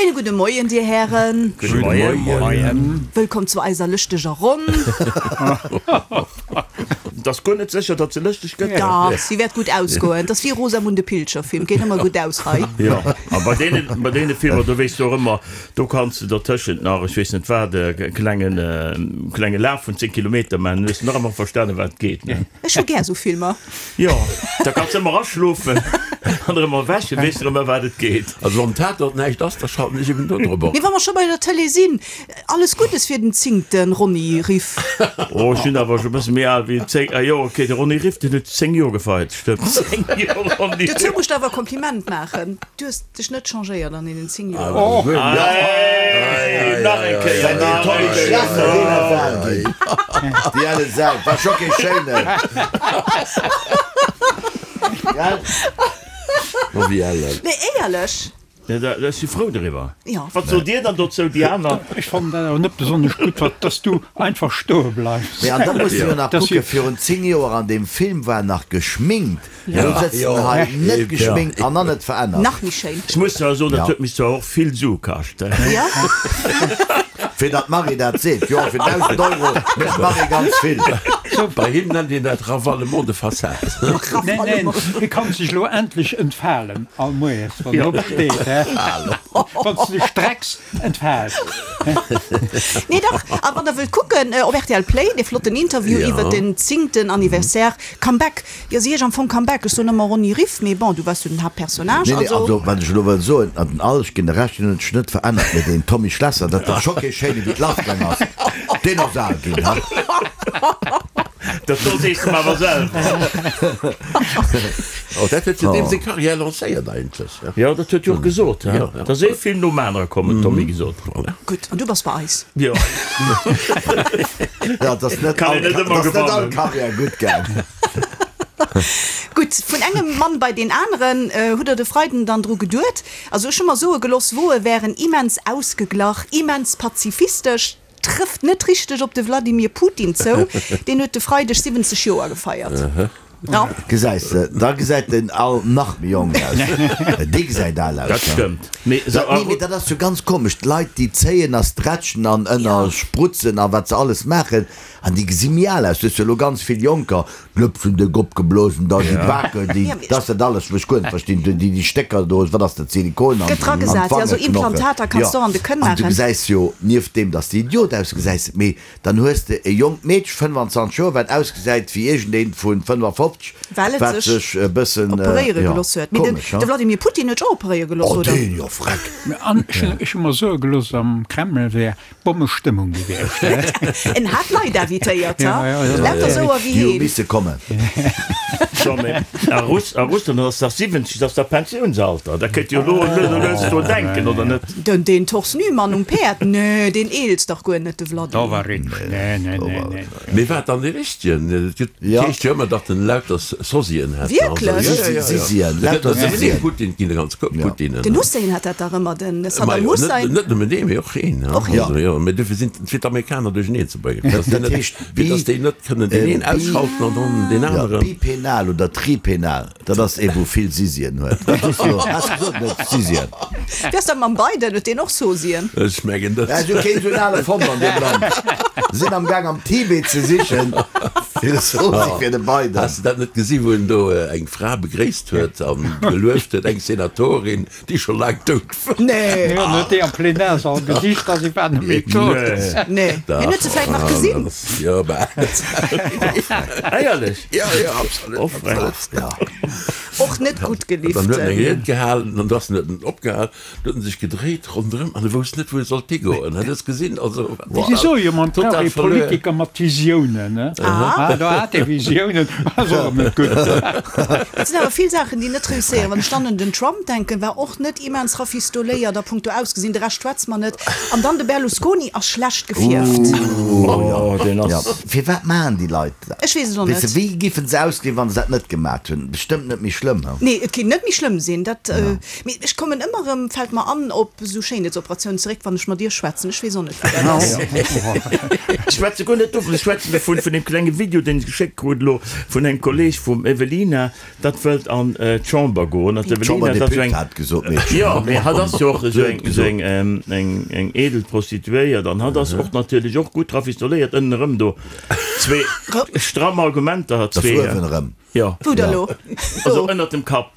Schéine gudde Moien, Dir Hären. Gudde Moien. Wëllkomm zu eiser lëschteger Ronn. Et ass guer net sécher, datt se lëschteg gëtt. Dach, si wäert gutt ausgoen. Et ass wéi Rosamunde Pilcher Film, geet ëmmer gutt aus hei. Jo, a bei deenen, bei deene Filmer, do weess de och ëmmer, do kanns de dertëschent nach, ech weess net wat, e klengen, klenge Laf vun 10 Kilometer maachen, dann hues de nach ëmmer verstanen, wat et geet, ne? Ech hu gär esou Filmer. Jo, da kanns de ëmmer aschlofen an erëm erwächen, weess de erëm ëm wat et geet. Also wann Tatort näischt ass, da schalten ech eben do drop op. Mee wa mer scho bei der Tëlee sinn, alles Guddes fir den zéngte Ronny Riff. Oh, ech sinn awer scho e bësse méi al wéi 10, ah jo, ok, de Ronny Riff, deen huet 10 Joer gefeiert, stëmmt, 10 Joer Ronny Riff. Dozou muss ech der awer e Kompliment maachen, du hues dech net changéiert an deenen 10 Joer. Hey, nach eng Kéier, nach eng Kéier. Déi elle Sau, war scho kee schéinen, gell? Ma wéi ellen? Nee, éierlech. Ech si frou doriwwer. Jo. Wat sot Dir dann dozou, déi aner? Ech fannen dat awer net besonnesch gutt, wat, dass du einfach stoe bleifs. Mee an da muss de jo nach kucken, virun 10 Joer an deem Film war en nach geschminkt, elo sëtzt en hei net geschminkt an nach net verännert. Nach méi schéin. Ech muss zwar soen, dat huet mech zwar och vill Sue kascht. Jo. Fir datt d'Marie dat seet, jo, fir 1.000 Euro mécht d'Marie ganz vill. Bei him nennt een dat Ravalement de façade. Neen, neen, hie kann sech elo endlech entfalen all Moies, wann en opsteet, hä? Wann s de dech strecks, entfaalt. Nee, dach, a wann der wëllt kucken, op rtl Play, dee flotten Interview iwwert den zéngten Anniversaire, Comeback. Jo, si heescht am Fong Comeback. Ech soen ëmmer Ronny Riff, mee bon, du waars jo den Haaptpersonnage, Nee, nee, also. also wat ech elo wëll soen, an den Al, ech ginn der Recht, deen huet sech net verännert, mee deen Tommy Schlesser, dat war scho kee schéine wéi d'lassgaang ass, deen ass al ginn, ha. Dat do sees de mer awer selwer. Oh, dat huet jo deem seng Carrière lancéiert eigentlech. Jo, dat huet jo och gesot, he. Jo, jo. Et ass ee Film nom anere komm, huet Tommy gesot. Voilà. Gutt, an du bass bei eis. Jo. Ja, et ass net Kann all, een net et ëmmer ass net all gewannen. Carrière gutt gaang. Gutt, vun engem Mann bei deen aneren. Hutt der de Freiden dann dru geduet? Also ech hu mer soe geloss, Woe wären immens ausgeglach, immens pazifistesch. Trëfft net richteg op de Wladimir Putin zou, deen huet de Freideg 70 Joer gefeiert. Jo. Gesäis de, da gesäit den Al nach méi jonk aus. Dee gesäit al aus. Dat stëmmt. Mee Dat, nee, mee dat ass jo ganz komesch. D'Leit, déi zéien a stretchen an ënner sprutzen a wat se alles maachen, an déi gesi méi al aus. Du hues jo elo ganz vill Jonker, D'Lëpsen déck opgeblosen, da déi Baken, déi, dat ass dat alles, wou ech guer net verstinn, déi, déi Stécker do, wat ass dat, Silikon an, Gëtt dragesat, jo, esou Implantater kanns de och an de Kënn An du maachen. gesäis jo, nieft deem, dass de Idiot ausgesäis, mee dann hues de e jonkt Meedche, 25 Joer, wat ausgesäit wéi iergendeent vu 55, Well et wat sech sech e bëssen, operéiere jo, geloss huet. Mee den, komesch, de Vladimir Putin huet sech och operéiere geloss, Oh, oder? deen, jo, freck. An ech hu mer soe geloss, am Kreml wär Bommestëmmung gewiescht. En hat Leit invitéiert, ha? Lauter esou a wéi Déi hu heen. misse kommen. So, mee a Russ, a Russland ass dach 70, dat ass dach Pensiounsalter. Da kënnt jo elo lues a lues do denken, oder net? Den, deen Torse nu Mann um Päerd, nee, deen eelst dach guer net, de Vladi. Do war richteg, nee, nee, nee, nee. Mee war dann dee richtegen? Et gëtt, et heescht jo ëmmer, datt en lauter Sosien hätt. Wierklech? Sisien, lauter Sisien. Putin, ginn e ganz Koup Putinen. Den Hussein hat dat dach ëmmer, den Saddam Hussein. Net nëmmen dee, mee och een. Och een. Also jo, mee dofir sinn fir d'Amerikaner duercheneen ze bréngen, fir datt déi Dat net, heescht fir datt déi net kënnen deen een ausschalten an dann deen aneren. Bipenal oder tripenal. Dat ass ee wou vill Sisien huet. Dat ass jo, has gesot net Sisien. Wéi ass dat mam Biden, huet deen och Sosien? Ech mengen net. Ech hu keen esou en ale fonnt an deem Land. Sinn am Gaang am Tibet ze sichen fir e Sosie fir de Biden. Has de dat net gesi wou en do eng Fra begréisst huet an gelueft huet, eng Senatorin déi scho laang dout war? Nee. Jo, en huet déi am Plenarsall gesicht a si war net méi tot. Nee. Hien huet se vläit nach gesinn. Jo, bah. Éierlech? Ja, ja, absolut. Oh, frech. Ja. Och net gutt Dann huet en eng gelift. Ried gehalen an da ass en huet en opgehal, du huet en sech gedréit ronderëm an e wousst net, wou e sollt higoen. Hat es gesinn, also Si soe jo, man brauch total ee verluer. Politiker mat Visiounen, ne? Ah, do hat e Visiounen, ass och net gutt. Et sinn awer vill Saachen, déi net reusséieren. Wann ech dann un den Trump denken, war och net immens rafistoléiert a punkto Ausgesinn, de Rescht schwätze mer net. An dann de Berlusconi ass schlecht gefierft. Oh, deen ass. Firwat maachen déi Leit Ech weess et och Weess de, net. wéi giffen se ausgesinn, wann se dat net gemat hunn? Bestëmmt net méi schlëmm. schlëmm, he? Nee, et kéint net méi schlëmm sinn. Dat, mee ech kommen ëmmer erëm, fält mer an, op esou Schéinheetsoperatiounen zeréck, wann ech mat Iech schwätzen. Ech weess och net, wéi dat ass. Ech schwätze guer net dovun, ech schwätzen dovun, vun deem klenge Video, deen ech geschéckt krut elo vun engem Kolleg vum Evelina, dat wëllt an d'Chamber goen. An d'Evelina, dat ass esou eng. D'Chamber-Deputéiert gesot, Meedchen. Jo, mee hatt ass jo och esou eng, esou eng, eng, eng edel Prostituéiert an hatt ass och natierlech och gutt rafistoléiert ënnen erëm do. Zwee stramm Argumenter hat zwee. Das uewen erëm. Jo. Wou da lo? Also ënnert dem Kapp.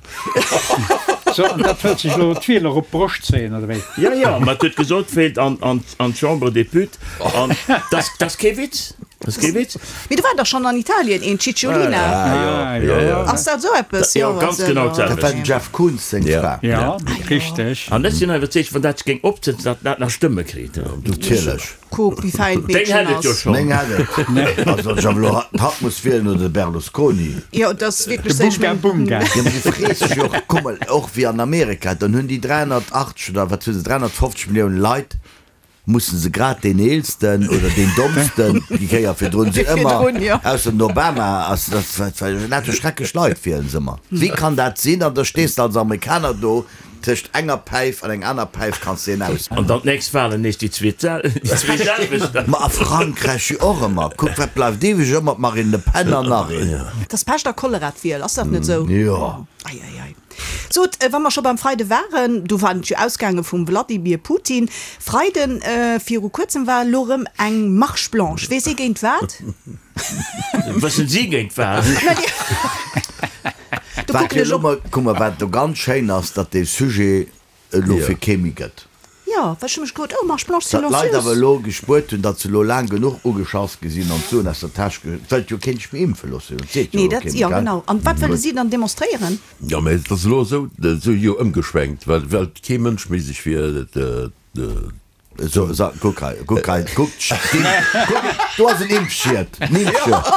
So, an dat wëllt sech elo d'Wieler op d'Broscht zéien, oder wéi? Ja, ja, ma et huet gesot, wéilt an, an, an d'Chambre des Putes. An dat, dat ass kee Witz. Dat ass kee Witz. Mee do war dach schonn an Italien een, d'Cicciolina. Ah, jo, jo. Ass dat esou eppes? Jo, ganz genau d'selwecht. Dat war dem Jeff Koons seng Fra. Ja, richteg. An ech sinn iwwerzeegt, wann dat sech géing opsetzen, datt dat nach Stëmme kritt. Natierlech. Kuck, wéi fäin Deng d'Meedchen hätt et jo ass. schonn. Meng hätt et. Also ech awer elo hatt muss wielen oder de Berlusconi. Jo, et ass wierklech De sou. Bunga Bunga. Jo, mee du frees dech jo och, kuck mol, och wéi an Amerika, dann hunn déi 380 oder wat hu se, 350 Milliounen Leit, mussen se grad deen eelsten oder deen dommsten, déi Kéier virdrun sinn ëmmer, ausser den Obama ass, dat war lauter schrecklech Leit wielen se ëmmer. Wéi kann dat sinn? An da stees de als Amerikaner do, Tëscht enger Päif an eng aner Päif kanns de en aus. An dann d'nächst Wahlen nees déi zwee selwecht. Ma a Frankräich jo och ëmmer. Kuck wat bleift iwwreg, ëmmer d'Marine Le Pen an nach een. Et ass Pescht a Cholera d'Wiel, ass dat net esou? Jo. Ei, ei, ei. Sot, wa mer scho beim Freide waren, do war et jo ausgaange vum Wladimir Putin. Freiden, viru kuerzem war elo erëm eng Marche blanche. Weess ee géint wat? Wëssen si géint wat? Do Wat kucken jo ech elo op. mol, kuck mol, wat do ganz schéin ass, datt dee Sujet et elo fir kee méi gëtt. Jo, well ech hu mech gefrot, oh, Marche blanche Datt d'Leit awer silencieuse. elo gespuert hunn, datt se elo laang genuch ugeschass gi sinn an d'Suen aus der Täsch ge, et wëllt jo keen sech méi impfe loossen, et seet jo Nee, elo dat, kee méi, jo, gell? genau. An wat wëlle si dann demonstréieren? Jo, mä et ass elo esou, esou jo ëmgeschwenkt, well, well kee Mënsch méi sech fir de. So, so, kuck hei, kuck hei, kuck, kuck, do ass en Impfschied, en Impfschied,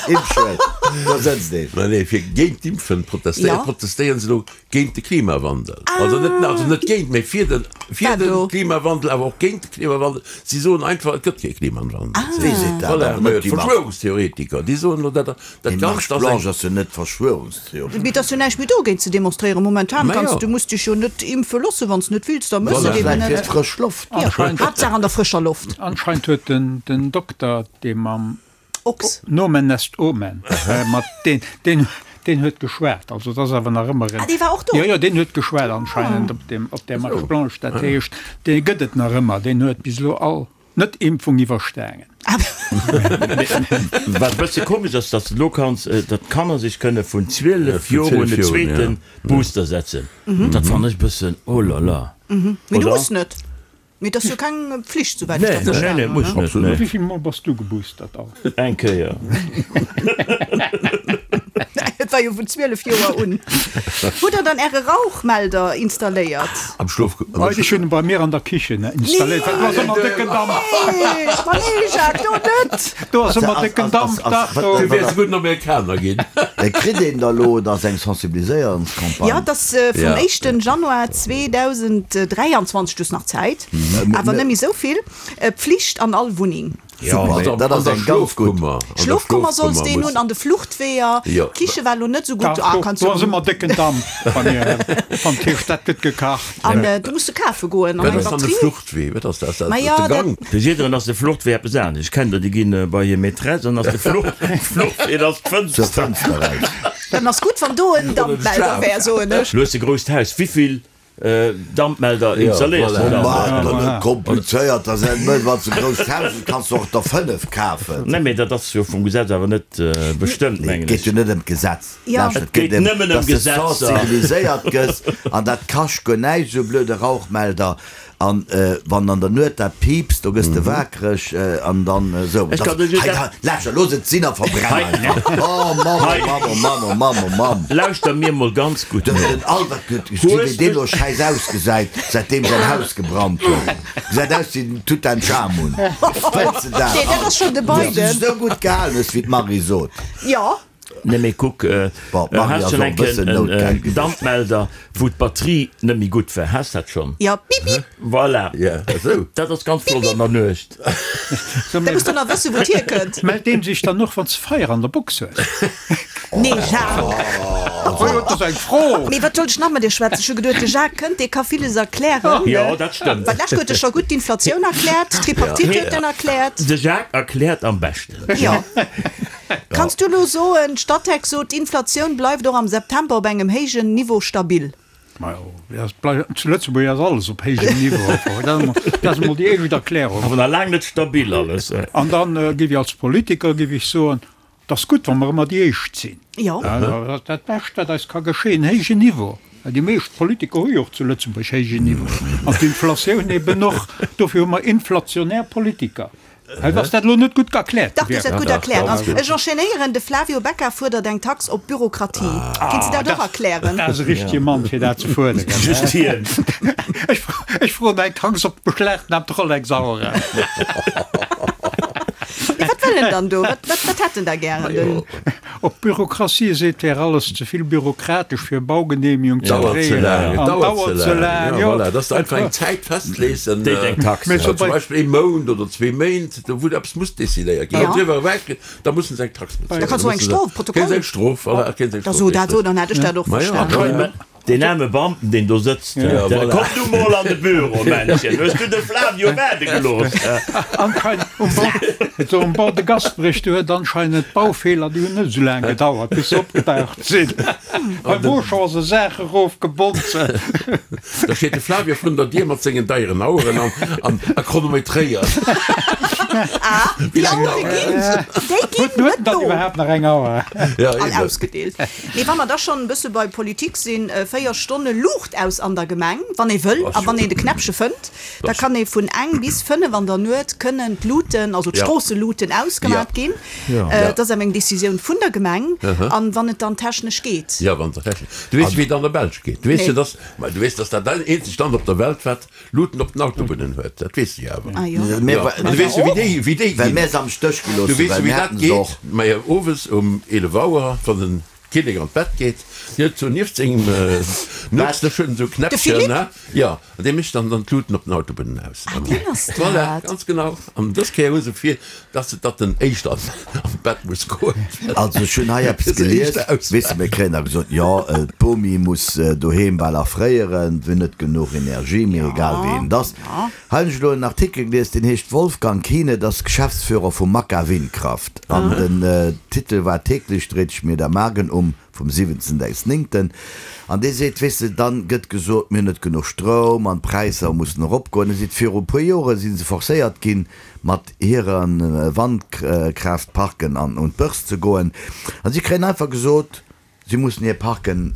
Impfschied, do sëtzt een. Nee, nee, fir géint d'Impfen protestéieren, Ja. protestéieren se elo géint de Klimawandel. Also net, also net géint, mee fir den, fir Wat de do? Klimawandel, awer och géint de Klimawandel. Si soen einfach, et gëtt kee Klimawandel. Wie seet dat? Voilà, Awer net déi Marche. Verschwörungstheoretiker, déi soen elo, dat, dat Déi Ganzt Marche ass eng. blanche ass jo net Verschwörungstheorie. Mee et ass jo näischt méi dogéint ze demonstréieren. Momentan Ma kanns jo. du, muss dech jo net impfe loossen, wann s net wills, da mëss Voilà. et eben Vläicht fir net. d'frësch Loft. Jo, Haaptsaach an der frëscher Loft. Anscheinend huet den den Dokter, dee mam Ochs. Nomen est Omen, mat deen deen deen huet geschwat. Also et ass awer nach ëmmer en. Ah, dee war och do? Jo, jo, deen huet geschwat anscheinend op deem op där Marche blanche. Dat heescht, dee gëtt et nach ëmmer. Deen huet bis elo all Net-Impfung iwwerstaangen. Wat e bësse komesch ass, datt elo kanns, datt d'Kanner sech kënne vun 12 Joer un den zweete Booster setzen. Dat fannen ech e bëssen, oh là là. Mee du muss net. Mee et ass jo keng Pflicht, souwäit ech dat verstanen hunn, ne? Absolut net. Wéi vill Mol bass du geboostert all? Eng Kéier. Et war jo vun 12 Joer un. Hutt der dann Äre Rauchmelder installéiert? Am Schlof. Ech hunn en bei mir an der Kichen installéiert, well do ass ëmmer décken Damp. Nee, ma nee Jacques, do net! Do ass ëmmer décken Damp, dach do. Du wäers e gudden Amerikaner ginn. Kritt een da lo, et ass eng Sensibiliséierungscampagne. Jo, et ass vum éischten Januar 2023, du hues nach Zäit, awer net méi esou vill, Pflicht an all Wunneng. Super, dat ass eng ganz gutt. Schlofkummer solls deen hunn, an de Fluchtweeër. D'Kiche war lo net esou gutt. Ah, kanns Do ass ëmmer décken Damp bei mir am Tisch, dat gëtt gekacht. An du muss du kafe goen an Wat eng ass dann de Batterie. Fluchtwee? Wat ass dat? Ma jo, De Gang? Fir jidderen ass de Fluchtwee eppes anescht. Ech kennen der, déi ginn bei hir Maîtresse an ass de Fluchtwee, dat ass Zur d'Fënster. Fënster raus. Dann ass gutt, wann do en Dampmelder wär, soen ech. Lu hues e grousst Haus, wéivill Dampmelder installéiers de dann? Maach der net komplizéiert, da sinn et wann s de e grousst Haus hues, kanns de och der 5 kafen. Nee, mee dat ass jo vum Gesetz awer net bestëmmt, Nee, mengen et geet ech. jo net ëm d'Gesetz. Ja. Lauschter, Et geet ëm, nëmmen ëm dass de Gesetzer. sensibiliséiert gëss an dat kascht guer näischt, esou e blöde Rauchmelder. An wann an der Nuet dat piipst, do gëss de waakreg an dann esou. Ech kann dech Hei, dat. lauschter, looss et sinn a verbrenn einfach. Oh Mamm, oh Mamm, oh Mamm, oh Mamm, oh Mamm. Lauschter mir mol ganz gutt Den, no. den Albert huet gesi wéi deen elo schäiss ausgesäit, säitdeem säin Haus gebrannt huet. Gesäit aus wéi den Tutanchamun. Wëlls de dat? Nee, dat ass schonn de Wou s de Biden. dech esou gutt gehalen hues, wéi d'Marie sot. Jo. Nee mee kuck, has schonn eng Kéier en Dampmelder wou d'Batterie net méi gutt war, has dat schonn? Jo, bip bip. Voilà, dat ass ganz flott an der Nuecht. Da muss de nach wëssen wou et hierkënnt. Mellt deen sech dann och wanns de Feier an der Box hues? Nee Jacques. Oh jo, dat ass eng Fro. Mee wat sollt ech nach mat dir schwätzen? Ech hu geduet de Jacques kënnt, dee ka villes erklären. Jo, dat stëmmt. Well d'lescht huet e scho gutt d'Inflatioun erkläert, d'Tripartite huet en erkläert. De Jacques erkläert am beschten. Jo. Kanns du elo soen, d'Statec sot, d'Inflatioun bleift och am September op engem héijen Niveau stabil? Majo, zu Lëtzebuerg ass alles op héijem Niveau. Dat ass emol déi éischt Erklärung. Awer nach laang net stabil alles. An dann géif ech als Politiker géif ech soen, Et ass gutt, wa mer ëmmer déi Éischt sinn. Jo. Dat ass dat Bescht, wat eis ka geschéien, héijen Niveau. Well déi meescht Politiker hu jo och zu Lëtzebuerg héijen Niveau. An d'Inflatioun eben och. Dofir hu mer inflationär Politiker. Hei ass dat elo net gutt erkläert Dach, du hues dat gutt erkläert. An ech enchaînéieren, De Flavio Becca fuerdert eng Tax op Bürokratie. Kéints de dat och erklären? Dat ass e richtege Mann, fir dat ze fuerderen. Just hien. Ech froen eng Tax op d'beschlagnahmt Rolex-Aueren. Mee wat wëll en dann do? Wat, wat, wat hätt en da gären? Den. Op Bürokratie seet, wär alles ze vill bürokratesch fir Baugenehmigung ze Dauert ze kréien laang, et an dauert dauert ze ze laang. laang, Ja, jo. voilà, dass de einfach eng Zäit festlees, en, Déit eng Tax. Mee zum bei. Beispill ee Mount oder zwee Méint, do wou eppes muss decidéiert ginn. Ja. An driwwer ewech, da mussen se eng Tax Da bezuelen. Da kanns du eng musse se, Strof, kréien se Protokoll. eng Strof, voilà, kréien se eng Da Strof, so dat richtig. so, dann hätt ech dat och Ma ja, verstanen. voilà. Deen aarme Beamten, deen do sëtzt, Komm du mol an de Büro, Männchen, hues du de Flavio waarde gelooss? Anscheinend um Bord, so um Bord de Gasperich, do huet anscheinend d'Baufeeler, déi hunn net esou laang gedauert, bis se opgedaucht sinn. Beim Auchan ass e Saach erofgebonze. Da steet de Flavio vrun der Dier mat sengen deieren Aueren an a chronometréiert. Ah, déi Auere ginn, déi ginn Huet net dann do. iwwerhaapt nach eng Auer? Ja, All eben. ausgedeelt. Mee wa mer da schonn e bësse bei Politik sinn, 4 Stonne Luucht aus an der Gemeng, wann ee wëll a wann een de Knäppche fënnt, da kann ee vun eng bis 5 an der Nuet kënnen d'Luuten, also d'Stroosseluuten ausgemat ginn. Dat ass awer eng Decisioun vun der Gemeng an wann et dann technesch geet. Jo, wann et technesch. Du weess, wéi et an der Belsch geet. Du weess jo, dass, ma du weess, dass dat eenzegt Land op der Welt, wat Luuten op den Autobunnen huet, dat weess de jo awer. Ah jo. Jo, an du weess jo, wéi déi, wéi déi Well ginn. mär se am Stéch gelooss Du hunn, weess well jo, wéi mär dat haten se geet. och. Majo, owes um 11 Auer, wann den Kinnek an d'Bett geet, deen huet sou nieft sengem Nuetsdësch huet en sou De Knäppchen, Philippe? ne? Jo, an dee mécht dann dann d'Luuten op den Autobunnen aus. Ah, deen ass Voilà, dat. ganz genau. An dës Kéier hu se vir, dass se, datt den éischter an d'Bett muss goen. Also ech hunn hei eppes Fir se gelies, éischter weess de, ausmaachen. mir kréien da gesot, jo, d'Bomi muss doheem bal erfréieren, se hunn net genuch Energie, mir egal wéi een et ass. Hei hunn ech elo en Artikel gelies, deen heescht Wolfgang Kiene, dat ass Geschäftsführer vu Makka Windkraft an den Titel war Täglich dreht sich mir der Magen um. vum 17.9. An dee seet, weess de, dann gëtt gesot, mir hunn net genuch Stroum an d'Präisser mussen eropgoen. E seet, viru e puer Jore si se forcéiert ginn, mat hire Wandkraaftparken an un d'Börse ze goen. A si kréien einfach gesot, si mussen hir Parken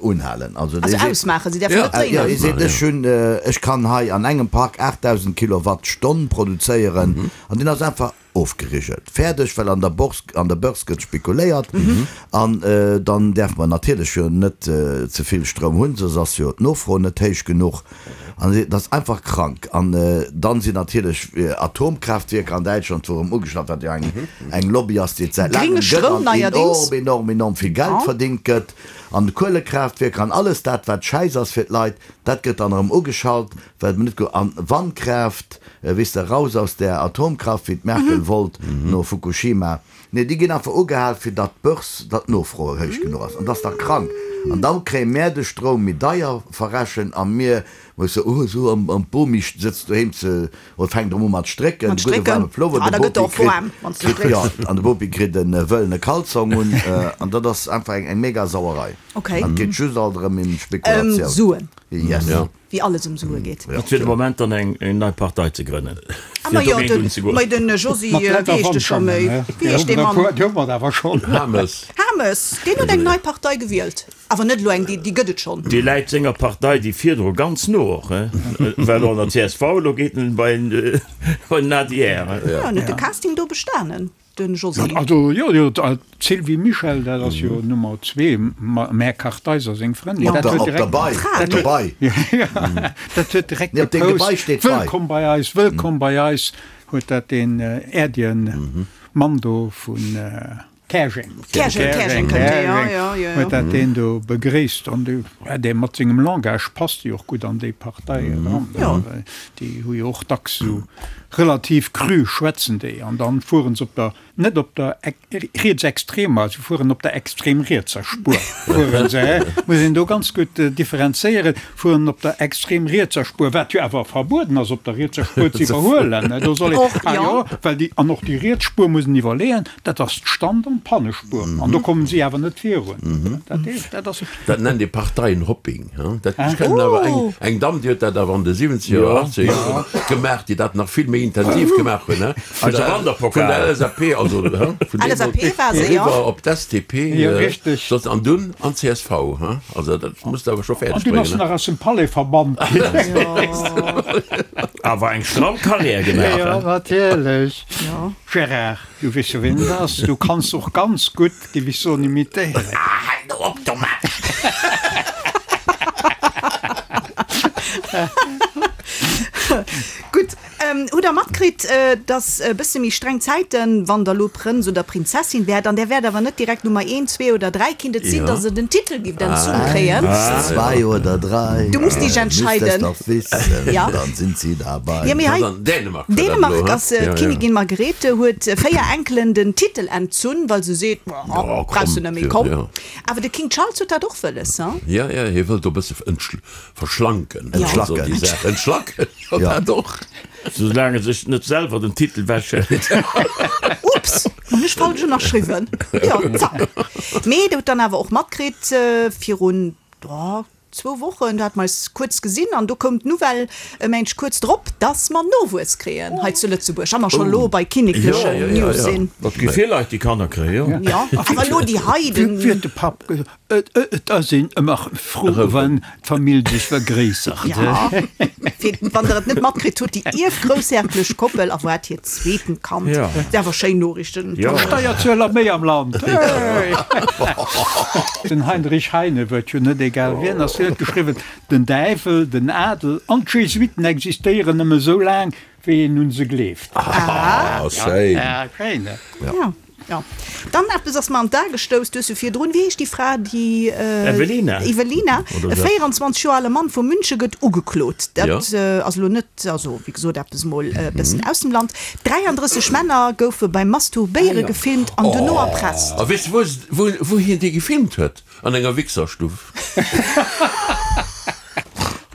unhalen. Also dee seet, ausmaachen, si däerfen net jo, dréinen. hie seet, ech hunn, ech kann hei an engem Park 8.000 Kilowattstonn produzéieren an deen ass einfach Ofgerigelt. Fäerdeg, well an der Bourse, an der Börse gëtt spekuléiert an dann däerfe mer natierlech jo net ze vill Stroum hunn, soss ass jo d'Nofro net héich genuch an et ass einfach krank. An dann sinn natierlech Atomkraaftwierker an Däitschland wou erëm ugeschafft, wat jo eng eng Lobby ass, déi et säit Grénge laangem gëtt Stroum an neierdings. enorm, enorm, enorm vill Geld verdingt gëtt an Kuelekraaftwierker an alles dat wat Schäiss ass fir d'Leit, dat gëtt dann erëm ugeschalt. Well mer net go an Wandkraaft, weess de, raus aus där Atomkraft, wéi d'Merkel wollt no Fukushima. Nee, déi ginn einfach ugehal, fir datt d'Börse, datt d'Nofro héich genuch ass. An dat ass dach krank. An da kréie mär de Stroum méi deier verrechent a mir musse, oh esou, an d'Bomi sëtzt doheem ze, oder fänkt erëm u mat strécken, Mat de gudde strécken. waarme Plover, Ah, de da gëtt Bopi och waarm, kritt, wann s de kritt, strécks. jo, an de Bopi kritt e wëllene Kalzong un. An dat ass einfach eng mega Sauerei. Okay. An et geet just alt erëm ëm Ëm Spekulatioun. Suen. Yes. Wéi alles ëm Sue geet. Et wier de Moment dann eng nei Partei ze grënnen, Ah, fir ma jo, dogéint den, unzegoen. mei den Josy, Mat wéi Leit a heescht de scho Wandschangen, méi? ne? Wéi heescht dee Mann? Déi hu mer awer schonn. Hames. Hames, deen huet eng nei Partei gewielt. Awer net elo eng, déi, déi gëtt et schonn. Dee läit senger Partei, déi virdru ganz no och, he, war elo an der csv, elo geet en bei den adr. Jo, en huet de Casting do bestanen. Den Josy. Also jo, jo, d'Sylvie Mischel, dat ass jo Nummer zwee, Mä Kartheiser seng Frëndin, Op dat der, huet op der direkt, Bei, dat der huet, Bei. ja, dat huet direkt Nee, op deem Gebai gepost, steet Bei. Wëllkomm bei eis, wëllkomm bei eis, huet dat deen äerdegen Mann do vun. Käerjeng. Käerjeng, Käerjeng kënnt dee, jo, jo, jo. Huet dat deen do begréisst. An dee, ja, dee mat sengem Langage passt jo och gutt an déi Partei eran. Jo. Déi hu jo och dacks esou relativ cru schwätzen déi. An dann fueren se op der, net op der rietsextremer, se fueren op der extrem rietser Spuer, fueren se, hä? Muss een do ganz gutt differenzéieren, fueren op der extrem rietser Spuer, wat jo awer verbueden ass, op der rietser Spuer ze iwwerhuelen. Do soll een, Och, ah jo. jo, well déi, an och déi riets Spuer muss een iwwerleeën, Dat ass d'Stand an d'Pannespuer, an do kommen si awer net virun. Dat heescht, dat ass. Dat nennt ee Parteienhopping. Dat, ech kennen awer eng, eng Damm, déi huet dat awer an de siwwenzeger oder achtzeger Joren gemaach, déi dat nach vill méi intensiv gemaach hunn, vun Eise der, Wanderpokal. vun der LSAP, also vun LSAP deemools war se, jo. eriwwer op d'SDP, Jo, richteg. soss an dunn an d'CSV. Also dat muss de awer scho An fäerdeg dunn ass bréngen. se nach aus dem Palais verbannt ginn. Awer eng stramm Carrière gemaach, Jo, natierlech. Gérard. Du weess jo ween et ass, du kanns och ganz gutt, géif ech soen, imitéieren. Ah, hal do op domat! Gutt, hutt der matkritt, dass e bësse méi streng Zäiten, wann der elo Prënz oder Prinzessin wäert, an där wäert awer net direkt Nummer eent, zwee oder dräi, kinnt et sinn, dass der den Titel giff entzunn kréien. Eins, zwei oder drei, Du musst dich müsst es entscheiden. doch wissen, Ja. dann sind sie dabei. Ja, mee hei. Dänemark war dat Dänemark elo, ass he? Ja, ja. d'Kinnigin Margrethe huet 4 Enkelen den Titel entzunn, well se seet, Ja, brauchs du komm, net méi, ja, komm. ja. Awer de King Charles huet dat och wëlles, he? Ja, ja, hie wëllt do e bësse verschlanken, Ja. also déi Saach. Entschlacken, jo, Ja. dat och. Soulaang e sech net selwer den Titel wechhëlt. Ups, hunn ech falsch ënnerschriwwen. Jo, zack. Mee der hutt dann awer och matkritt, virun, oh, Zwou Wochen, do hate mer eis kuerz gesinn an do koum d'Nouvelle e Méindeg kuerz drop, dass mer Nowuess kréien hei zu Lëtzebuerg a mer scho lo bei kinneklechen News sinn. Et gi vill Leit, déi Kanner kréien, jo. Jo, awer elo déi hei, den. Wéi huet de Papp gesot, Et ass een ëmmer frou, wann d'Famill sech vergréissert. Jo, fir wann der et net matkritt hutt, déi ierfgroussherrglech Koppel erwaart hiert zweeten Kand. Jo. Dat si awer schéin Noriichten. Jo. Steierzueler méi am Land, hey! Den Heinrich Heine huet jo net egal wien ass, hien huet geschriwwen, Den Däiwel, den Adel an d'Jesuiten existéieren nëmme sou laang, wéi een un se gleeft. Ah, schéin. Ja, schéin, ne? Ja, ja. Dann eppes ass mer an d'A gestouss, du hues jo virdrun, wéi heescht déi Fra, déi. Evelina. Evelina, e 24 Joer ale Mann vu Münche gëtt ugeklot. Dat ass elo net, also wéi gesot, eppes mol e bëssen aus dem Land. 33 Männer goufe beim Masturbéiere gefilmt an dono erpresst. A weess de wou wou hien déi gefilmt huet? An enger Wichserstuff.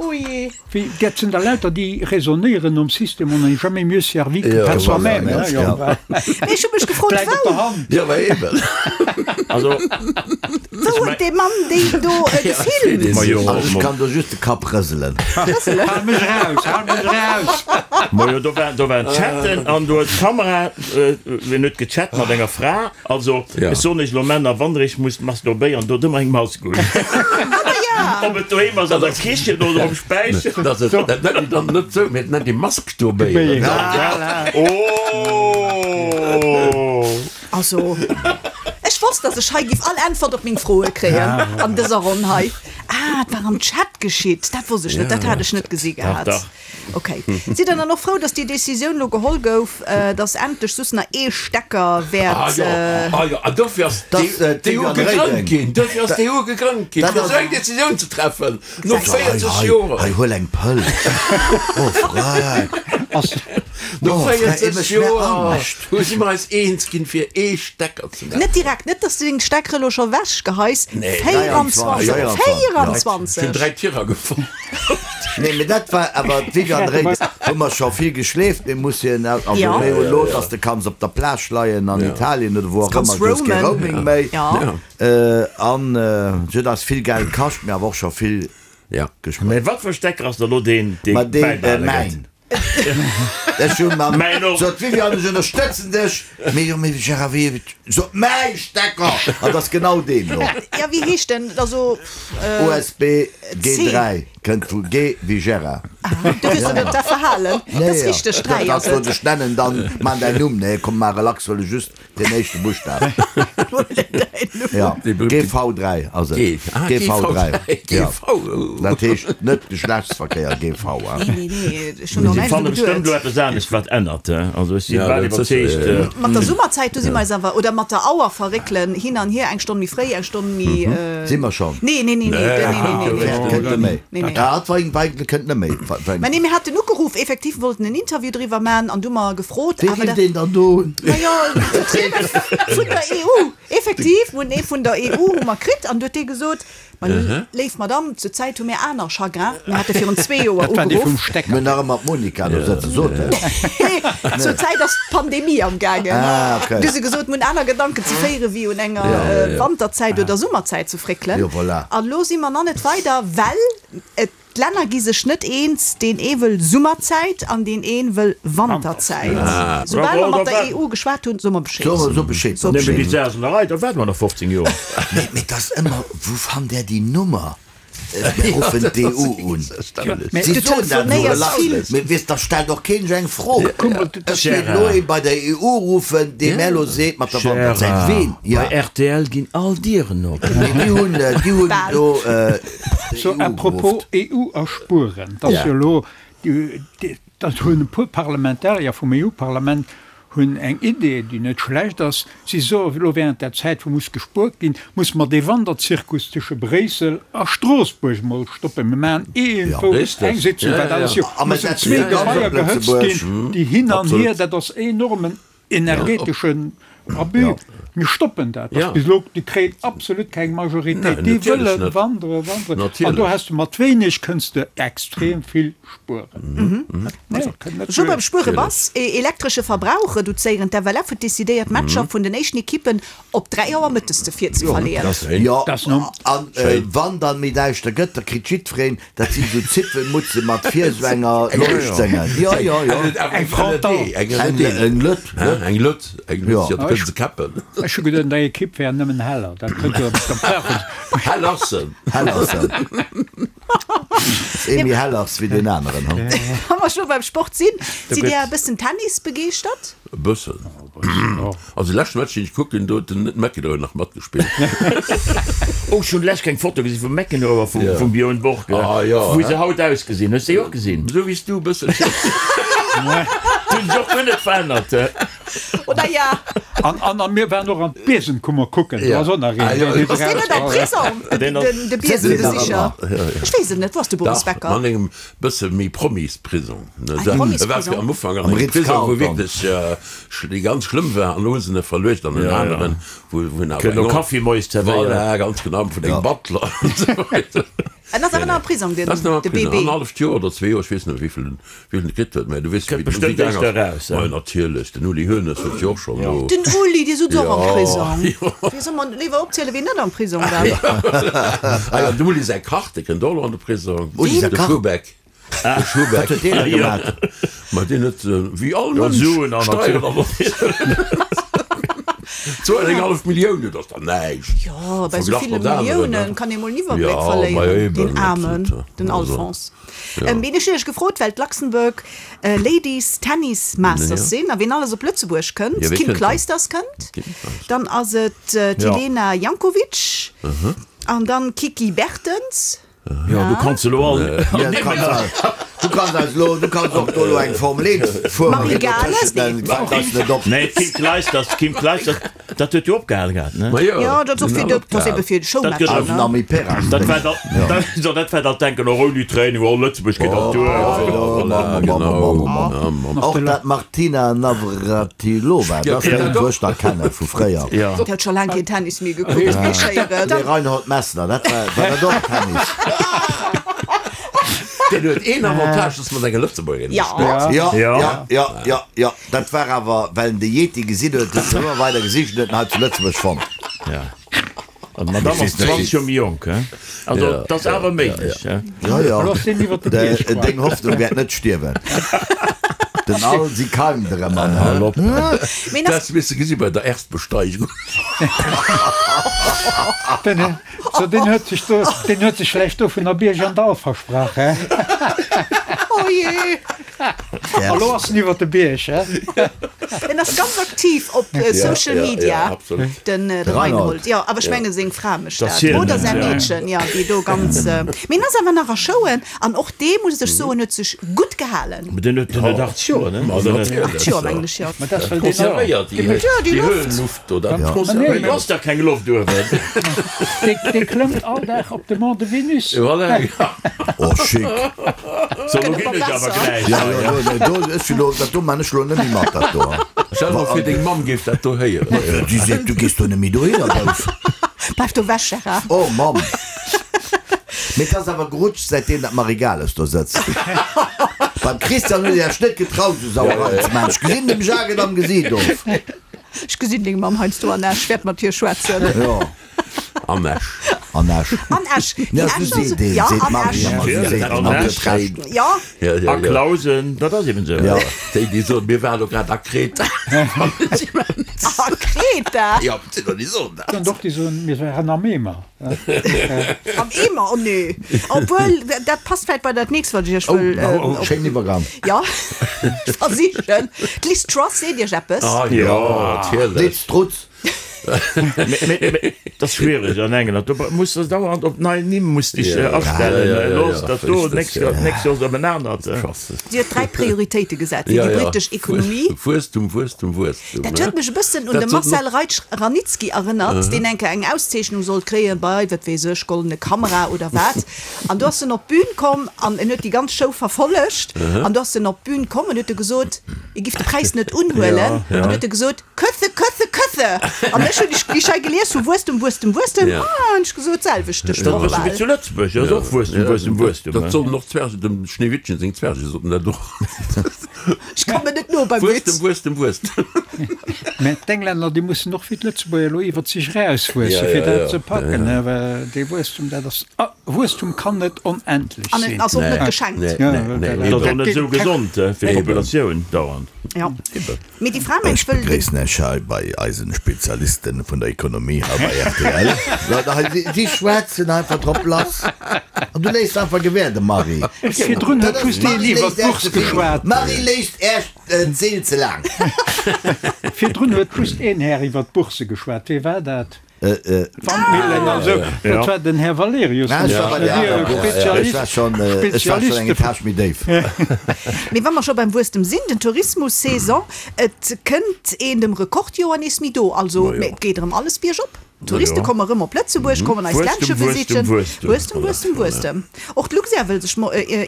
Oh jee. Wéi, dat sinn der lauter déi raisonnéieren nom System on n'est jamais mieux servi que par soi-même, Ja, hein, jo. Mee ech hu mech gefrot, Bläit op der wou? Hand. Ja, ma eben. Also, Wou huet dee Mann déi do gefilmt? Majo, Also ech kann do just de Kapp rëselen. Hal mech raus, hal mech raus! Majo, do war, do waren Chatten an do huet d'Kamera, wien huet gechat mat enger Fra? Also, Ja. ech soen iech elo, Männer, wann der iech musst masturbéieren, dot ëmmer eng Mask un. Ob et doheem ass, an der Kichen oder um Späicher. Dat ass, dat nennt een dann net sou, mee dat nennt ee Masturbéieren. Voilà. Oh! Also, ech wosst, dass ech hei giff all Äntwert op meng Froe kréien an dëser Ronn hei. Ah, et war am Chat geschitt, dat wosst ech net, dat hat ech net gesi gehat. Dach, dach. Okay. Sidd der dann och frou, dass déi Decisioun elo geholl gouf, dass endlech soss nach ee Stecker wäert. Ah jo, ah jo, an dofir ass d'EU gegrënnt ginn, dofir ass d'EU gegrënnt ginn, fir esou eng Decisioun ze treffen, no 40 Joer. Hei, huel eng Pëll. Oh, Freck. No 40 Joer hu si mer eis eens ginn, fir ee Stecker ze maachen. Net direkt, net dass du deng Steckere elo scho wech geheis. 24! 24! Ech hunn 3 Tirer gefonnt. Nee, mee dat war awer d'Viviane Reding. Hu mer scho vill geschleeft, mee muss hien, also Ja. méi elo, dass de kanns op der Plage leien an Italien oder wou och Kanns ëmmer, du hues kee roamen. Roaming méi. Ja. An se huet eis vill Geld kascht, mee awer och scho vill Ja. gespuert. Mee wat fir e Stecker ass da lo deen, dee Ma deen, bäibehale gëtt? mäin. Ech hunn mam, Mäin och. sot d'Viviane, ech ënnerstëtzen dech, mee jo, mee Gérard, wéi, sot mäi Stecker! An 't ass genau deen do. Ja, wéi heescht den? Also, USB C. G3. Kënnt vu G wéi Gérard. Ah, du hues der dat verhalen. Dat ass richteg, 3 ass et. Dat ech nennen, dann man däin Numm. Nee, komm, mar relax, huele just den éischte Buschtaf. Ja, GV3 ass et. GV3, ja. Dat heescht net Geschlechtsverkéier, GV, hein. Nee, nee, nee, ech hunn och Si näischt fanne dru bestëmmt geduet. elo eppes anescht, wat ännert, he. Also ech si bal iwwerzeegt. Mat der Summerzäit, do si mer eis awer, oder mat der Auer verréckelen, hin an hier, eng Stonn méi fréi, eng Stonn méi. Si mer schonn? Nee, nee, nee, nee, nee, nee, nee, nee. Kënnt net méi. Nee, nee. Ah, et war eigentlech kënnt net méi. Mä nee, mir haten ugeruff, effektiv, wollten en Interview driwwer man an du mer gefrot, Wee awer rifft dat. een dann do un? Majo, d'Vertrieder vun der EU, effektiv, mir hunn ee vun der EU hu mer kritt an du huet dee gesot, Ma léif Madamm, zur Zäit hu mir aner Chagrin, mir hate virun zwee Joer Dat war dee vum ugeruff. Stecker. Mir hunn nach ëmmer d'Monica do sëtzen, sot en. Nee, zur Zäit ass d'Pandemie am gaangen. Ah, okay. Du hu se gesot, mir hunn aner Gedanken ze féiere wéi un enger Wanterzäit oder Summerzäit ze fréckelen. Jo, voilà. An elo si mer nach net weider, well et, d'Länner gi sech net eens, deen ee wëll Summerzäit an deen een wëll Wanterzäit. Soubal mer mat der EU geschwat hunn, soe mer Bescheed. So Bescheed. So Nëmme déi Bescheed. Sasenerei, da waarde mer nach 15 Joer. Mee et ass ëmmer, wou fannt där déi Nummer? Mir ruffen d'EU un. Si Du soen dat esou telefonéiers vill. relax, mee weess, da stellt och keen eng Fro. Ech géif elo ee bei der EU ruffen, dee mär elo seet mat der Wanterzäit, ween? Bei rtl ginn all Dieren op. Mee déi hunn, déi hunn do So, d'EU à propos geruff. EU a spueren, et ass jo elo, dat hunn e puer Parlamentarier vum EU-Parlament hunn eng Idee, déi net schlecht ass. Si soen, elo während der Zäit, wou muss gespuert ginn, muss mer dee Wanderzirkus tësche Bréissel a Stroossbuerg emol stoppen. Mir maachen iergendwou eng Sitzung, wat alles jo mussen zwee Gebaier gehëtzt ginn, déi hin an hier, dat ass enormen energeteschen Abus. Mir stoppen dat. Dat ass bis elo, déi kréien absolut keng Majoritéit. Déi wëlle wandere, wanderen. An do has de mat wéineg kënns de extrem vill spueren. Scho beim Spuere bass, Elektresche Verbrauch reduzéieren, D'FLF huet decidéiert, d'Matcher vun den éischten Ekippen op 3 Auer mëttes ze virzeverleeën. Jo, an wann dann méi däischter gëtt, da kritt jiddwereen, dat sinn esou Zipfelmutze mat vir esou enger Leuchtdéngen. Jo, jo, jo. Eng Frontal. Eng LED. Eng LED, eng LED, jo, da kënne se käppen. Ech hu geduet, deng Ekipp wär nëmmen heller. Dat kënnt jo op der Hell ass se. Hell ass se. Ee méi hell ass wéi deen aneren, hu? Wa mer scho beim Sport sinn, sidd Dir e bëssen Tennis begeeschtert? E bëssen. Also de leschte Match, deen ech kucken, do huet den McEnroe nach matgespillt. Oh, ech hunn lech eng Foto gesinn vum McEnroe a vum Björn Borg, wéi se haut ausgesinn. Hues de déi och gesinn? Esou wéi s du e bësselchen. Déi hunn sech och guer net verännert. Oder ja. An, an, an mir waren och an d'Biesenkummer kucken. Do ass och nach een, deen huet Ass deen net am Prisong, den, de Biesenbesicher? Ech weess et net. Wou ass de Boris Dach, Becker? an engem bësse méi Promisprisong. Eng E war Promisprisong? am Ufank an engem Prisong, wou wierklech déi ganz schlëmm war, an elo hu se en verluecht an en aneren, wou wou en awer Kënnt eng och Kaffi moies zerwéieren. Voilà, ganz genau, vun engem Butler an esou weider. En ass awer nach am Prisong, den, Ass nach am de Prisong, BB. annerhalleft Joer oder zwee Joer, ech weess net méi, wéi vill en Wien et kritt huet, mä du weess jo, Kënnt wéi den Uli bestëmmt gaang éischter ass. eraus, Majo, hein? natierlech, den Uli Hoeneß huet jo och schonn do. Den Uli, dee sutz och am Jo, Prisong. jo. Wéi soll mer léiwer opzielen, wien net am Prisong war? Ah jo, dem Uli säi Kach, dee kënnt och elo an de Prisong. Uli säi De Kach? Schuhbeck. De Schuhbeck. Wat huet deen da gemaach? Ma deen huet, wéi all Jo, Mënsch, Suen an Steieren erwuer. Zwou an eng hallef Millioun, dat ass dach näischt. Jo, bei esou Verglach ville mat aneren, Milliounen ne? kann ee mol en Iwwerbléck Jo, ma verléieren, eben, deen Aarmen, absolut. den Also. Alphonse. Ween ech hunn iech gefrot, well d'Luxembourg Ladies Tennis Masters sinn a ween alles op Lëtzebuerg kënnt. D'Kim Clijsters kënnt, dann ass et d'Jelena Jankovic an dann d'Kiki Bertens. Jo, du kanns elo all. Du kanns eis elo, du kanns och do elo eng Formel 1 Fuererin Marie Gales, nee. Fänkt eis net op. Nee, d'Kim Clijsters, d'Kim Clijsters, Dat huet jo opgehal gehat, ne? Ma jo, Jo, dat ass och fir de, dat ass ebe fir de Showmatcher, Dat ne? Nami Peras. Dat war da, dat, so, dat war dat Denken och ouni Training, oh Lëtzebuerg geet dat duer. Voilà, genau. Och dat Martina Navratilova, dat ass eng, wou ech nach kenne vu fréier. Ja. Déi huet scho laang keen Tennis méi gekuckt, wéi schéieren. De Reinhold Messner, dat war, war dat och Tennis? Deen huet een Avantage, dass mat enger Lëtzebuergerin Ja. gespillt. Ja, Ja. ja, ja, ja, ja. Dat war awer, well en de Yeti gesinn huet, huet en ëmmer weider gesicht en huet en hei zu Lëtzebuerg fonnt. Ja. An d'Madame ass 20 Joer méi jonk, he? Also, dat ass awer méiglech, he? Jo, jo. Looss deen iwwer de Bierg goen. Deng Hoffnung wäert net stierwen. Den Alsi keimt erëm an. Hal op. Dat hues de gesi bei der Erstbesteigung. Den, so deen huet sech do, deen huet sech vläicht do vun der Bierg an Dall versprach, hä? Oh jee! A lo ass en iwwer de Bierg, hä? En ass ganz aktiv op Social Media, den Reinhold. Jo, awer ech menge seng Fra mécht dat, oder säi Meedchen, jo, déi do ganz. Mee en ass awer nach a Showen an och dee, muss ech soen, huet sech gutt gehalen. Mee deen huet 80 Joer, ne? 80 Joer, mengen ech, jo. Ma dat ass well deen Konservéiert déi déi Höhenluft do, dat konservéiert. Do ass dach keng Loft uewen. Dee klëmmt all Dag op de Mont de Vénus. Voilà. Oh, chic. So, lo ginn ech awer gläich. Ja, jo, jo, nee, do, ech lo, dat do man ech lo net méi mat, dat do. Stell der vir, deng Mamm géif dat do héieren. Déi seet, du gees do net méi dohinner, Bouf. Bleif do wech, Gérard. Oh, Mamm. Mee 't ass awer gerutscht, säitdeem dat Marie Gales do sëtzt. Beim Christian huet Dir Iech net getraut, esou Sauerei ze maachen. Ech gesinn dem Jacques et am Gesiit of. Ech gesinn deng Mamm heiansdo an Esch, wäert mat hir schwätzen. Jo. An Esch. An Esch. An Esch. Ja, Déi esou Escher seet een, ja, seet an d'Marie Esch. ëmmer, esou seet An d'Mamm, Esch. huet Recht. Ja. Ja, ja, A ja. Clausen, dat ass eben esou. Ja. Déi, déi soen, mir waren elo grad a Kreta. A Kreta? Ja, sinn der, déi soen dat. Dann doch, déi soen, mir waren am Eemer. Am Eemer? Oh nee. Obwuel, dat passt vläicht bei dat nächst, wat ech iech wëll. Oh, oh, schéin Iwwergang. Ja, ech versichen. D'Liz Truss, seet iech eppes? Ah jo, natierlech. Liz Trutz. Dat ass schwiereg an England, do muss de dauernd op nei Nimm muss dech astellen. Elo ass dat do, d'nächst Joer d'nächst Joer ass et op en anert. Si huet 3 Prioritéite gesat fir déi britesch Ekonomie. Wuesstum, Wuesstum, Wuesstum. Dat huet mech e bëssen un de Marcel Reitsch-Ranicki erënnert, deen eng Kéier eng Auszeechnung sollt kréien bei, wat weess ech, Goldene Kamera oder wat. An do ass en op d'Bün komm an en huet déi ganz Show verfollegt. An do ass en op d'Bün komm an huet e gesot, e giff de Präis net unhuelen. An huet e gesot, Köthe, Köthe, Köthe! An ech hunn déi Schei gelies vu Wuesstem, Wuesstem, Wuesstem, Ja. ah, hunn ech gesot, d'selwecht de Dat Sproch ass wéi bal. zu Lëtzebuerg, dat ass och Wuesstem, Wuesstem, Wuesstem. Dat soten och d'Zwerge, dem Schneewittchen seng Zwerge soten dat och. Ech kommen net no beim Witz. Wuesstem, Wuesstem, Wuesstem. Mä d'Englänner, déi mussen och wéi d'Lëtzebuerger elo iwwert sech erauswuessen, Ja, fir ja, dat ja. ze packen. Ja, ja. Well dee Wuesstum, dat ass, ah, Wuesstum kann net onendlech An et sinn. ass och net Nee, geschenkt. nee, Ja, nee, nee, dat- Dat ass och eben. net esou gesond fir d'Populatioun dauernd. Ja. Eben. Mee déi Fra mengt, Ech wëll de. begréissen Iech hei bei eisen Spezialisten vun der Ekonomie hei bei rtl. Leit hei, si, si schwätzen einfach drop lass. An du léiss einfach gewäerden, Marie. Virdrun huet Dat ass, just een d'Marie iwwer léisst Äerch d'Bourse ze vill, geschwat. d'Marie léisst Äerch d'Seel ze laang. Virdrun huet just een Här iwwer d'Bourse geschwat. Wee war dat? Wandmillen an esou. Dat war den Här Valerius. Ech war schonn eng Etage méi déif. Mee wa mer scho beim Wuesstem sinn, den Tourismus-Saison, et kënnt een dem Rekordjoer nees méi do. Also et geet erëm alles biergop. D'Touriste komme rëm op Lëtzebuerg, kommen eist Ländche besichen. Wuesstem, Wuesstem, Wuesstem. Och d'Luxair wëll sech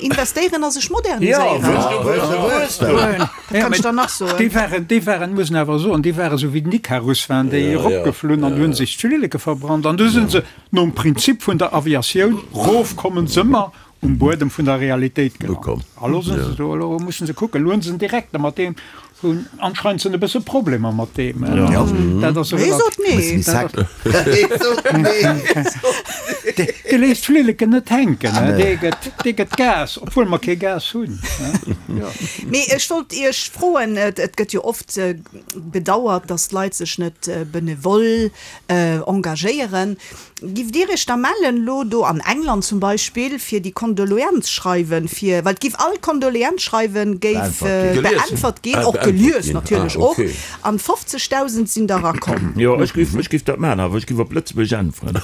investéieren a sech moderniséieren. Wat kann ech dann nach soen? Déi waren, déi waren, muss een awer soen, déi waren esou wéi den Ikarus waren déi eropgeflunn an hunn sech d'Flilleke verbrannt an du sinn se nom Prinzip vun der Aviatioun, rofkommen se ëmmer um Buedem vun der Realitéit gelant. A lo sinn se do, elo mussen se kucken, elo hunn se en Direkter, mat deem hunn anscheinend se e bësse Problemer mat deem. Dat ass Hee sot nee. Dee léisst d'Flilleken net hänken, dee gëtt, dee gëtt Gas, obwuel mer kee Gas hunn. Mee ech wollt Iech froen, et gëtt jo oft bedauert, datt d'Leit sech net benevol engagéieren. Giff Dir Iech da mellen, lo do an England zum Beispill, fir déi Kondoleanzschreiwen, fir, well et giff all Kondoleanzschreiwen géif beäntwert ginn, och gelies natierlech och, an 50.000 sinn der erakomm. Jo, ech giff, ech giff dat maachen, awer ech giff op Lëtzebuerg äntweren.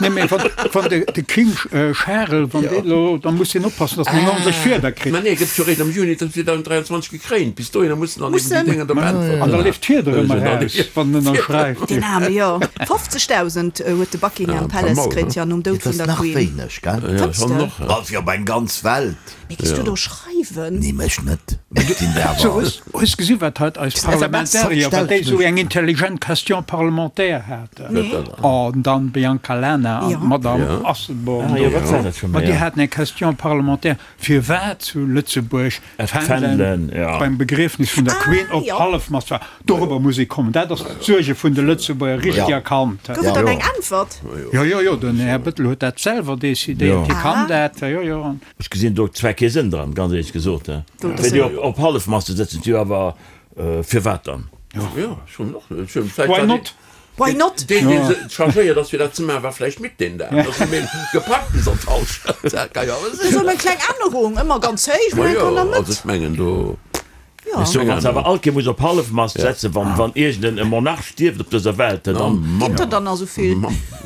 Nee, mee wann, wann de, de King Charel, wann deen elo, da muss deen oppassen, datt en eng ordentlech Fieder kritt. Mä nee, gëtt jo réischt am Juni 2023 Gekréint, bis dohinner mussen dann eben déi Dénger da beäntwert An da leeft d'Fieder ëmmer eraus, wann en ënnerschreift. Deen Aarme, jo. 50.000 huet de Buckingham Palace kritt, jo, nom Doud Dat vun ass der nach Queen. wéineg, gell? Fënns de? Wa fir op eng ganz Welt. Mee giss du do schreiwen? Nee, mech net. Mee et ginn der So, awer. hues, hues gesi wat haut eis Parlamentarier, wat déi esou eng intelligent Question parlementaire haten? Nee. Oh, an dann d'Bianca Lana an Jo. d'Madame Asselborn Ah jo, do. wat war dat scho Ma méi? déi haten eng Question parlementaire, firwat zu Lëtzebuerg D'Fändelen beim Begriefnis vun der Queen op Hallefmast war. Dorobber muss ee kommen. Dat ass d'Suerge vun de Lëtzebuerger richtig erkannt. Gouf et dann eng Äntwert? Jo, jo, jo, den Här Bettel huet dat selwer decidéiert. Hie kann dat. Jo, jo. Ech gesinn do zwar kee Sënn dran, ganz éierlech gesot. Fir déi op. op Hallefmast ze sëtzen, jo awer firwat dann? Jo, ech hunn och, ech hunn vläicht Why not? Why not? Deen, deen se chargéiert ass fir dat ze maachen, war vläicht midd deen Dag. Ass méi gepackt bis an d'Hallschent. Dat ka jo awer sinn. Esou eng kleng Ännerung, ëmmer ganz héich, Ma mä jo, kann der also Mëtt. ech mengen do. Jo. Ech soen, wann se awer all Kéier muss op Hallefmast setzen, wann, wann iergend en Monarch stierft op dëser Welt, dann. Ginn der dann nach esou vill?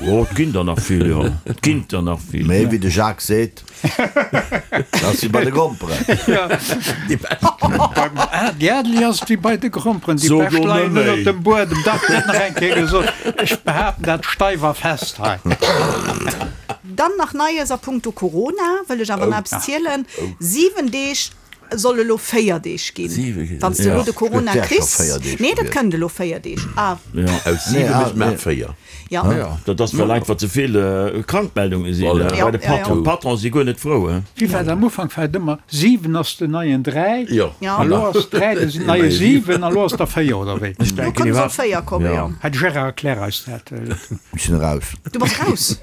Oh, et ginn der nach vill, jo. Et ginn der nach vill. Mee wéi de Jacques seet, dat ass wéi bei de Gromperen. Déi bescht. Beim Ady Adli ass et wéi bei de Gromperen, déi So bescht do leien net ënnert méi. dem Buedem. Dach, dat nach eng Kéier gesot. Ech behaapten dat steif a fest hei. Dann nach Neies a punkto Corona, wëll ech awer nach eppes zielen. 7 Deeg soll elo 4 Deeg ginn, wann s de elo de Corona kriss. Nee, dat kënnt elo 4 Deeg. Ah. Aus 7 mécht maer 4. Ja. Dat ass well einfach ze vill Krankmeldunge sinn bei de Patron. D'Patronen si guer net frou. Wéi war et am Ufank? War et ëmmer 7 ass den neien 3, a lo ass 3 den neie 7 a lo ass der 4, oder wéi? Lo kënne se op 4 kommen, jo. Här Gérard, erklär eis dat. Ech sinn eraus. Du bass raus?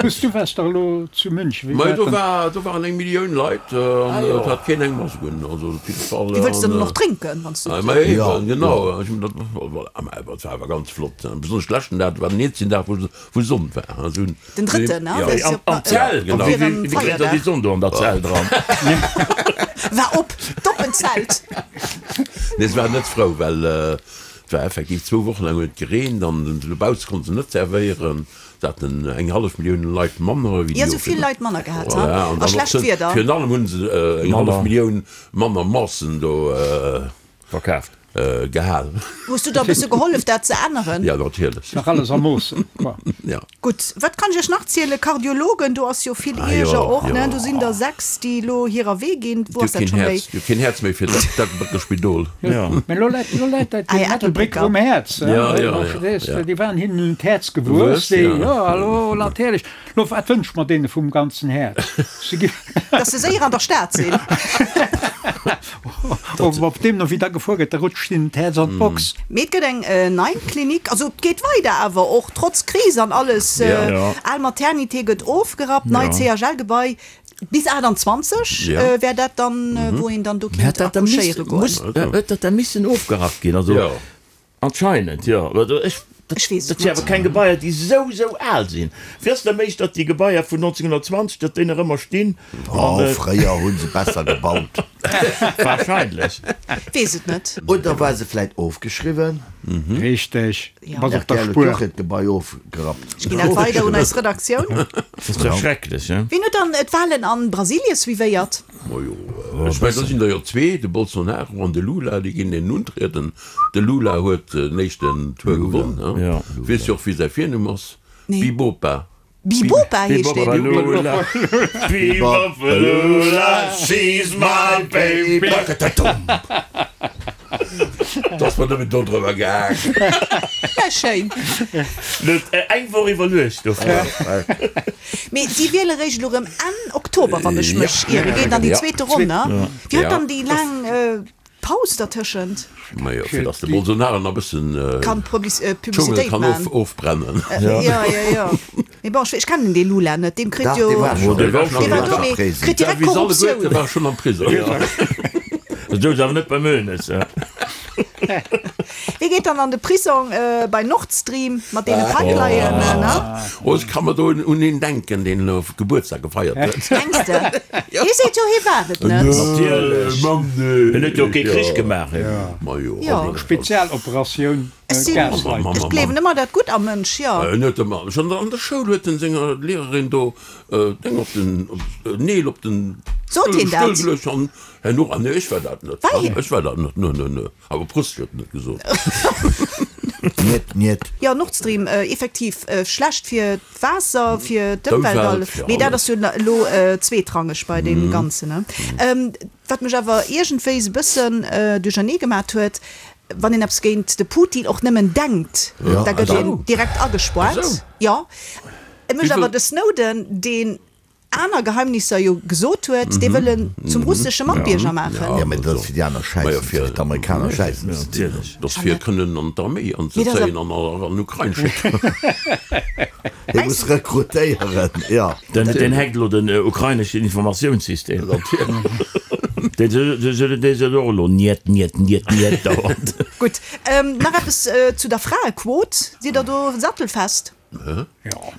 Hues du waars dach elo zu München, wéi Mei war do et dann? war do waren eng Millioun Leit an et hat keen eng Mask un, also op jidde Fall. Déi wëlls de dann och drénken, wann s du. Ma eben, genau, ech hunn dat, voilà, mä awer et war awer ganz flott, besonnesch de leschten Dag, dat war den eenzegen Dag wou wou Sonn war, also hunn. Den drëtten, ne? Ja, Am am Zelt, genau. Wéi wéi kritt der déi Sonn do an der Zell dran? War op, d'oppent Zelt. Nee, se waren net frou, well et war effektiv zwou Wochen laang huet et gereent an dobausse konnte se net servéieren. Se haten eng hallef Millioun Leit manner wéi déi Jo, sou vill Leit manner gehat, ha? Voilà, an A schlecht dann och, Wieder. virun allem hu se eng hallef Millioun manner Massen do verkaaft. Gehal. Hues du da e bësse gehollef, dat ze änneren? Ja, natierlech. Nach alles a Moossen, quoi. Ja. Gutt, wat kann ech iech nach zielen? Kardiologen, do ass jo vill Ierger och, ne? Do sinn der 6, déi elo hirer Wee ginn. Wou ass dat keen scho méi? Häerz, déi hu keen Häerz méi fir dat Spidol. Mä elo läit, elo läit dat Ah dem ja, Ettelbrécker Ettelbrécker. um Häerz, Ja, ja, ja, verstees de? ja. Déi waren hinnen un d'Häerz gewuess, Gewuess, déi, ja. jo, elo natierlech. Lo, wat wënscht mer deene vum ganzen Häerz? Se gi. Dass se séier an der Stad sinn. Op, op deemno wéi da gefuer gëtt, da rutscht hinnen d'Häerz an d'Box. Mee et gëtt eng nei Klinik, also et geet weider awer och trotz Kris an alles. Ja. Al Maternité gëtt ofgerappt, neit CHL-Gebai Bis 28 wär dat dann, wou een dann do kinnt accouchéiere goen. Huet dat da missen ofgerappt ginn? Also anscheinend, jo. Ech weess et net. Dat si awer keng Gebaier, déi esou, esou al sinn. Wéi ass et da méiglech, datt déi Gebaier vun 1920, datt déi nach ëmmer stinn? Oh, fréier hu se besser gebaut. Wahrscheinlech. Weess et net. Oder war se vläit ofgeschriwwen? Richteg, du bass op der RTL huet Spuer. och hiert Gebai ofgerappt. Ech ginn dat weider un eis Redaktioun. Dat ass dach schrecklech, he? Wien huet dann d'Wahlen an Brasilie suivéiert? Majo, ech mengen, do sinn der jo zwee, de Bolsonaro an de Lula, déi ginn een untrieden. De Lula huet den éischten Tour gewonn, he? Weess jo och, wéi säi Virnumm ass? Nee. Bibopa. Bibopa heescht deen. Bibopalula, Bibopalula, she's my baby. Et ass mer nëmmen dodrëwer gaang. Ja, schéin. Net eng Woch iwwerluecht dofir. Mee si wiele réischt elo rëm Enn Oktober, wann ech mech ieren. Geet an déi zweete Ronn, ne? Wéi huet dann déi laang Paus dertëschent? Majo, fir datt de Bolsonaro nach e bëssen Kann d'Schungel Publicitéit kann man. ofbrennen. Jo, jo, jo. Mee bon, ech kennen dee Lula net, deem kritt Dach, jo. dee war schonn Dee war schonn Dee war do, mee kritt direkt Wéi se alleguerte Korruptioun. war schonn am Prisong. Dat souz awer net beim Hoeneß. Wie geet dann an de Prisong bei Nord Stream mat deene Pipelinen, ne? Oh, ech ka mer do un een denken, deen elo Gebuertsdag gefeiert huet. Mengs de? Hie seet jo, hie war et net. Natierlech. Hien huet jo kee Krich gemaach. Majo. Jo. Spezialoperatioun Gaslighting. Ech gleewen ëmmer dat Gutt am Mënsch, jo. En huet ëmmer, schonn an der Schoul huet en senger Lehrerin do Deng op den Neel op den Sot hien dat? Stull geluecht an herno, ah nee, ech war dat net, War hien? ech war dat net, nö, nö, nö, awer Prost huet en net gesot. Niet, niet. Jo, Nord Stream, effektiv schlecht fir d'Waasser, fir d'Ëmwelt, D'Ëmwelt, fir mee dat alles. ass jo elo zweetrangeg bei deem Ganzen, ne? Wat mech awer iergendwéi e bëssen duerchernee gemat huet, wann een eppes géint de Putin och nëmmen denkt, da gëtt een direkt agespoart. Jo, et mécht awer de Snowden, deen aner Geheimnisser jo gesot huet, dee wëll en zum russesche Matbierger maachen. Jo, mä dat ass fir déi aner Schäissen, fir d'Amerikaner Schäissen ze dinn. Dat ass fir kënnen an d'Arméi anzezéien an an Ukrain schécken. Hie muss rekrutéieren, jo. Den hackt elo den ukraineschen Informatiounssystem. Dee sot och elo Niet, niet, niet, niet dauernd. Gutt, nach eppes zu der Fraequot. Sidd der do sattelfest?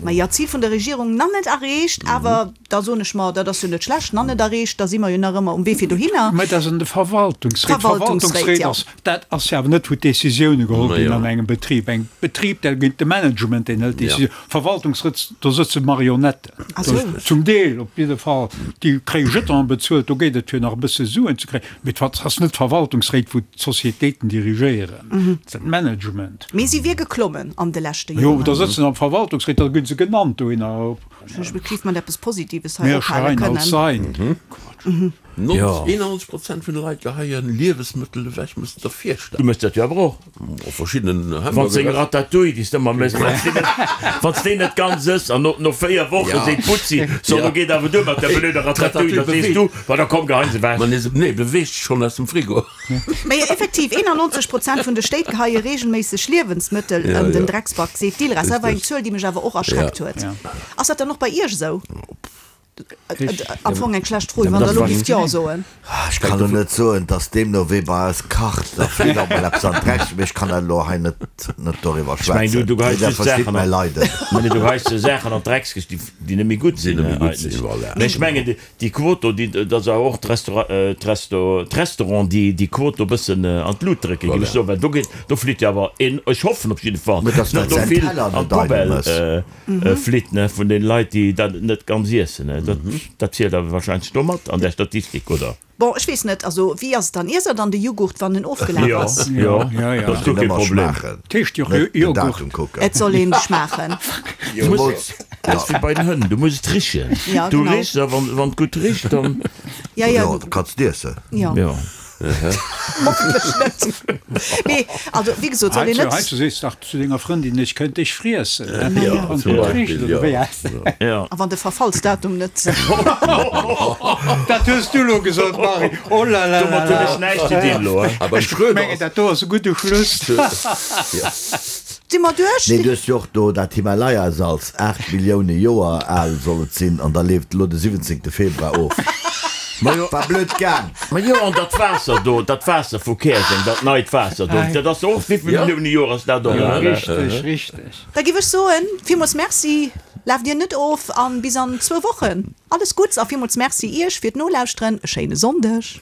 Majo, d'Zil vun der Regierung nach net erreecht, awer da soen ech mer, dat ass jo net schlecht, nach net erreecht, da si mer jo nach ëmmer um Wee fir dohinner. Mä dat ass an de Verwaltungsréit. D'Verwaltungsréit, jo. Dat ass jo awer net, wou d'Décisioune geholl ginn an engem Betrib. Engem Betrib, da gëtt de Management, deen hëlt d'Décisioun. Verwaltungsrëts, do sëtze Marionetten. Zum Deel op jidde Fall. Déi kréie Jetonen bezuelt, do geet et fir nach e bësse Suen ze kréien. Mee et ass net d'Verwaltungsréit, wou d'Sociétéiten dirigéieren. Dat ass d'Management. Mee si wier geklommen an de leschte Joren. Jo, da sëtzen am Verwaltungsréit, da gi se genannt dohinner. Ech géif mat eppes Positives hei ophale kënnen. 91 Prozent vun de Leit geheien Liewesmëttel ewech, muss de der virstellen. Du méchs dat jo awer och. Op verschiddenen Wann s deng Ratatouille, déi s de ëmmer méchs, wann s déi net ganz ëss an no 4 Woche seet d'Butzi, So, lo geet awer duer mat där blöder Ratatouille, da sees du, Ma da komm, geheien se ewech. Nee, beweegt sech schonn aus dem Frigo. Mä jo, effektiv, 91 Prozent vun de Stéit geheie reegelméisseg Liewensmëttel an den Drecksback, seet d'ILRAS. Dat war eng Zuel, déi mech awer och erschreckt huet. Ass dat dann och bei Iech esou? Am Fong eng schlecht Fro, wann Der elo géift Jo soen. Ech kann elo net soen, dass deemno wee bei eis kacht, da flitt och mol eppes an d'Dreck, mee ech kann dat elo hei net net doriwwer Ech mengen, schwätzen. du geheis Dir just verstitt Saachen mäi an, Leiden. nee, du geheis Saachen an d'Dreckskëscht, déi, déi net méi gutt sinn, Déi net méi gutt sinn, eigentlech. voilà. Mee ech mengen, déi, déi Quot do, déi, dass awer och d'Restaura, d'Resto, d'Restaurant déi, déi Quot do e bëssen an d'Lut drécken, géif ech Voilà. soen, well do geet, do flitt jo awer en, ech hoffen op jidde Fall, Mä dass net dat do säin vill Teller an net eidel d'Poubelle mëss. Flitt ne vun den Leit déi dat net ganz iessen ne. Dat dat zielt awer wahrscheinlech do mat an där Statistik oder? Bon, ech weess net, also wéi ass et dann? Iesst der dann de Jughurt wann en ofgelaf ass? Jo, jo, dat ass guer kee Problem. Et heescht jo Joghurt. Et soll een schmaachen. Zemools, dat ass wéi bei den Hënn, du muss et richen. Du richs a wann wann et gutt richt dann. Ja, ja. Jo, da kanns de iessen. Jo. Jo. Hoffentlech net. Mee also wéi gesot, soll een net. Heiansdo sees de dach zu denger Frëndin, ech kënnt dech friessen. Ja, Wann zum et gutt Beispill, richt, oder ja. wéi ass dat? Ja. A wann de Verfallsdatum net. Dat hues du elo gesot, Marie. Oh la la la Domat hunn ech la. näischt ze dinn elo. A beim Ech Schröder mengen, ass. dat do ass e gudde Schluss. Ja. Si mer duerch? Nee, du hues jo och do dat Himalaya-Salz, 8 Millioune Joer al soll et sinn, an da leeft elo de 17 Februar of. War blöd gaang. Ma jo, an dat Waasser do, dat Waasser vu Käerjeng, dat neit Waasser do, dat ass och, wéivill Millioune Joer ass dat och al? Richteg, richteg. Da giff ech soen, villmools Merci, laaft dir net of an bis an zwou Wochen. Alles Gutts a villmools Merci iech fir d'Nolauschteren. E schéine Sonndeg.